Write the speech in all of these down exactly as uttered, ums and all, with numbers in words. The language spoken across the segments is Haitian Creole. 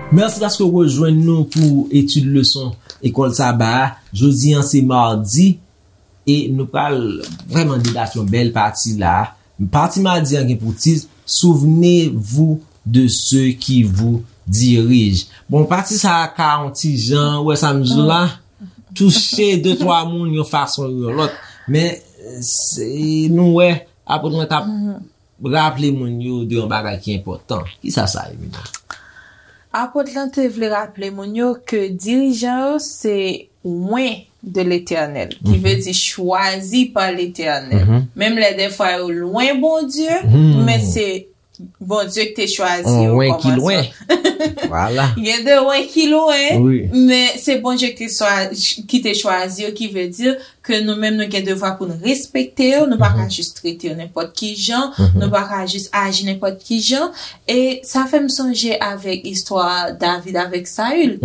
Mèsi paske w rejwenn nou pou etid leson Lekòl Saba a. Jodi a, se madi, e nou pral vrèman debat yon bèl pati la. Pati madi a gen pou tit, Souvenez-vous de ceux qui vous dirigent. Bon, pati sa a ka yon ti jan, ou wè sa m di w la, touche de twa moun yon fason ou yon lòt. Men, se, nou wè, apot mwen t ap raple moun yo de yon bagay ki enpòtan. Kisa sa ye, Mina? Apot lan te vle raple moun yo ke dirijan yo se oint de Letènèl, ki vle di chwazi pa Letènèl. Menm lè dèfwa yo lwen Bondye, men se Bondye ki te chwazi yo. Oint ki lwen. Vwala. Gen de oint ki lwen, men se Bondye ki, ki te chwazi yo, ki vle di ke nou menm nou gen devwa pou nou respekte yo, nou pa ka jis trete yo nenpòt ki jan, nou pa ka jis aji nenpòt ki jan. E sa fè m sonje avèk istwa David avèk Sayil.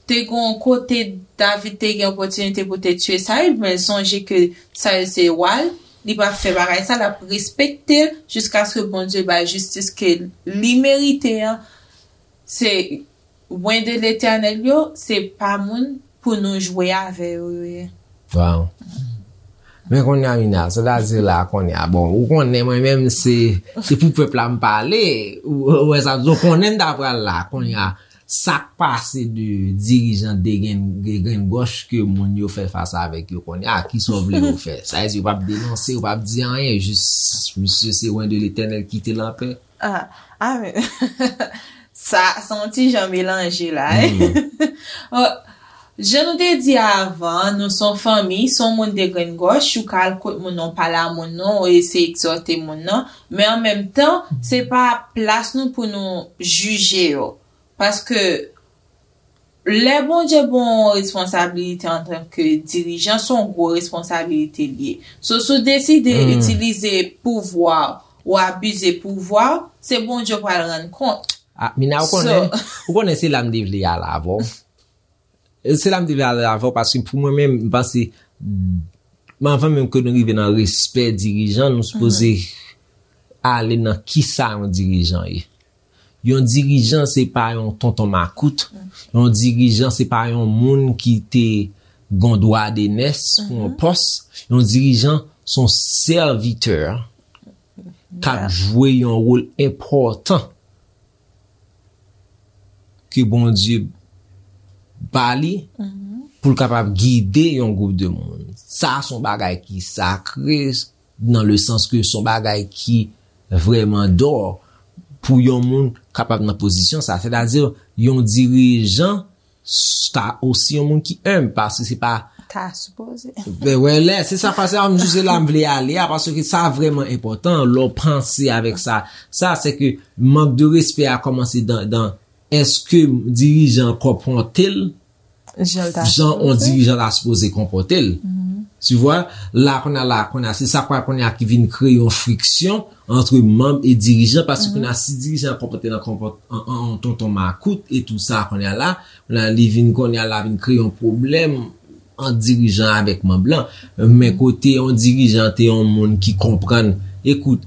Te gen yon kote David te gen opòtinite pou te tiye Sayil, men sonje ke Sayil se wa l, li pa fè bagay sa, l ap respekte l jiskaske Bondye bay jistis ke li merite an. Se oint de Letènèl yo, se pa moun pou nou jwe avè yo, yo ye. Wow. Men kounye a, Mina, sètadi la, kounye a, bon, ou konnen mwen menm, se, se pou pèp la m pale, ou, ou wè sa, donk konnen m ta pral la, kounye a, sa k pase de dirijan de grenn, de grenn gòch ke moun yo fè fas avèk yo kounye a, kisa w vle yo fè? Sa vle di yo p ap denonse, yo p ap di anyen, jis misye se oint de Letènèl, kite l anpè. Ah, ah, men, sa, se yon ti jan melanje la, wi. Bon, jan nou te di avan, nou se yon fanmi, si yon moun de grenn gòch, ou ka al kot moun nan, ou pale a moun nan, ou eseye egzòte moun nan, men an menm tan, se pa plas nou pou nou jije yo. Paske lè Bondye ba w yon responsabilite antanke dirijan, se yon gwo responsabilite li ye. So, si w deside itilize pouvwa w, ou abize pouvwa w, se Bondye w pral rann kont. Ah, Mina, ou konnen, ou konnen se la m te vle ale avè w. Se la m te vle ale avè w, paske pou mwen menm, m panse, men anvan menm ke nou rive nan respè dirijan, nou sipoze ale nan kisa yon dirijan ye. Yon dirijan, se pa yon tonton makout. Yon dirijan, se pa yon moun ki te gon dwa de nès pou yon pòs. Yon dirijan, se yon sèvitè k ap jwe yon wòl enpòtan ke Bondye ba li pou l kapab gide yon gwoup de moun. Sa se yon bagay ki sakre, nan le sans ke se yon bagay ki vrèman dò pou yon moun kapab nan pozisyon sa. Sètadi, yon dirijan s-, ta osi yon moun ki enb, paske se pa ta sipoze. Ben, wè, lè, se sa, se la m jis la m vle ale a, paske sa vrèman enpòtan, lè w panse avèk sa. Sa, se ke mank de respè a kòmanse dan, dan, èske dirijan konpòte l jan yon dirijan ta sipoze konpòte l? Tu vois, la, kounye a, la, kounye a, se sa kwa, kounye a ki vin kreye yon friksyon antre manm e dirijan, paske kounye a, si dirijan an konpòte l an konpòt-, an, an, an tonton makout e tou sa, kounye a la, kounye a, li vin, kounye a la, vin kreye yon pwoblèm ant dirijan avèk manm lan. Men kote yon dirijan te yon moun ki konprann, ekout,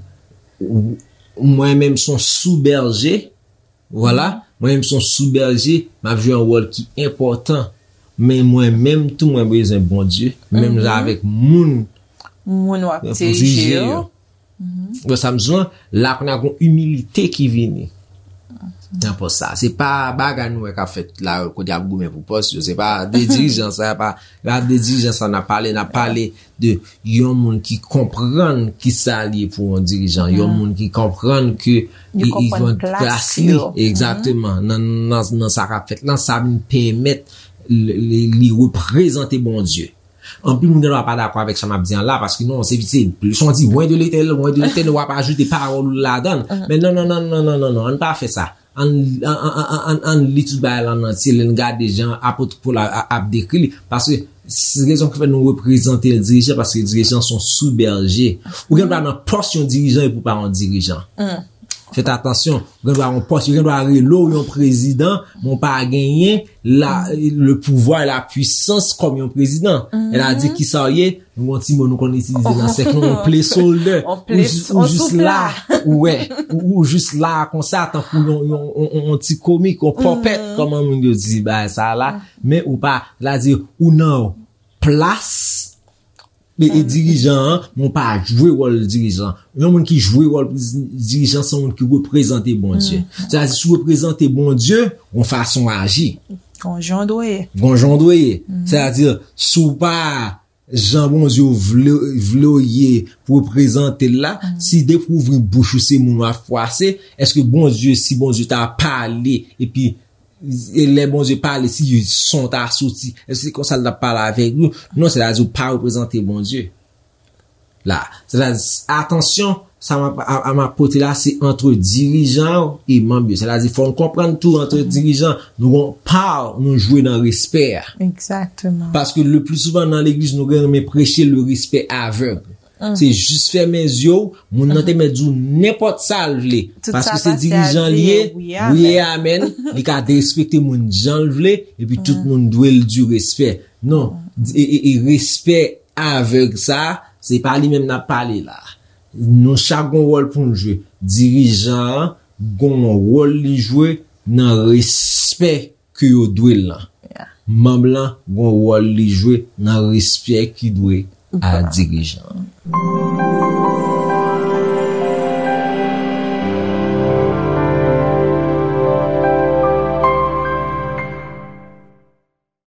ou, mwen menm se yon sou bèje, vwala, mwen menm se yon sou bèje, m ap jwe yon wòl ki enpòtan. Men mwen menm tou, mwen bezwen Bondye, menm jan avèk moun, moun w ap dirije yo. Bon, sa m di w, la kounye a gon imilite ki vini nan pòs sa. Se pa bagay nou wè k ap fèt la, kote y ap goumen pou pòs yo. Se pa de dirijan sa, pa, pa de dirijan sa n ap pale, n ap pale de yon moun ki konprann kisa l ye pou yon dirijan, yon moun ki konprann ke li konprann plas li. Egzakteman. Nan, nan, nan sa k ap fèt lan, sa vin pèmèt li, li, li reprezante Bondye. Anpil moun gen dwa pa dakò avèk sa m ap di an la, paske non, se, se plis on di, oint de Letènèl, oint de Letènèl, w ap ajoute pawòl ou ladan l. Men non, non, non, non, non, non, non, ann pa fè sa. Ann, ann, ann, ann, ann, ann li tout bagay la an antye, lè n gade jan apot Pòl a, a, ap dekri li. Paske, se rezon ki fè nou reprezante dirijan, paske dirijan se yon sou bèje. Ou gen dwa nan pòs yon dirijan epi w pa yon dirijan. Fèt atansyon, ou gen dwa yon pòs, yo gen dwa rele w yon prezidan, men w pa genyen la, le pouvoir, la puissance kòm yon prezidan. Sètadi kisa w ye? Yon ti mo nou konn itilize nan sèk nou, yon placeholder. Ou jis la, ou wè, ou jis la konsa, tankou yon, yon, yon, yon ti komik, yon pòpèt, kòman moun yo di bagay sa la, men ou pa, sètadi, ou nan plas e, e dirijan an, men ou pa jwe wòl dirijan. Yon moun ki jwe wòl dirijan, se yon moun ki reprezante Bondye. Sètadi, si w reprezante Bondye, yon fason aji. Gon jan w dwe ye. Gon jan w dwe ye. Sètadi, si w pa jan Bondye vle, vle w ye pou reprezante l la, si depi w ouvri bouch ou se moun w ap fwase, èske Bondye, si Bondye ta pale, epi e lè Bondye pale, si son ta soti, èske se konsa l t ap pale avèk nou? Non, sètadi w pa reprezante Bondye. La, sètadi, atansyon, sa m ap, a, a, m ap pote la, se ant dirijan yo e manm yo. Sètadi, fò n konprann tou, ant dirijan, nou gon pa nou jwe nan respè a. Paske le pli souvan nan legliz, nou gen renmen preche le respè avèg. Se jis fèmen zye w, moun nan te mèt di w nenpòt sa l vle. Paske se dirijan li ye, wi e amèn, li ka derespekte moun jan l vle, epi tout moun dwe l di respè. Non, e, e, e respè avèg sa, se pa li menm n ap pale la. Nou chak gon wòl pou n jwe. Dirijan an gon wòl li jwe nan respè ke yo dwe l lan. Manm lan gon wòl li jwe nan respè ki dwe a dirijan an.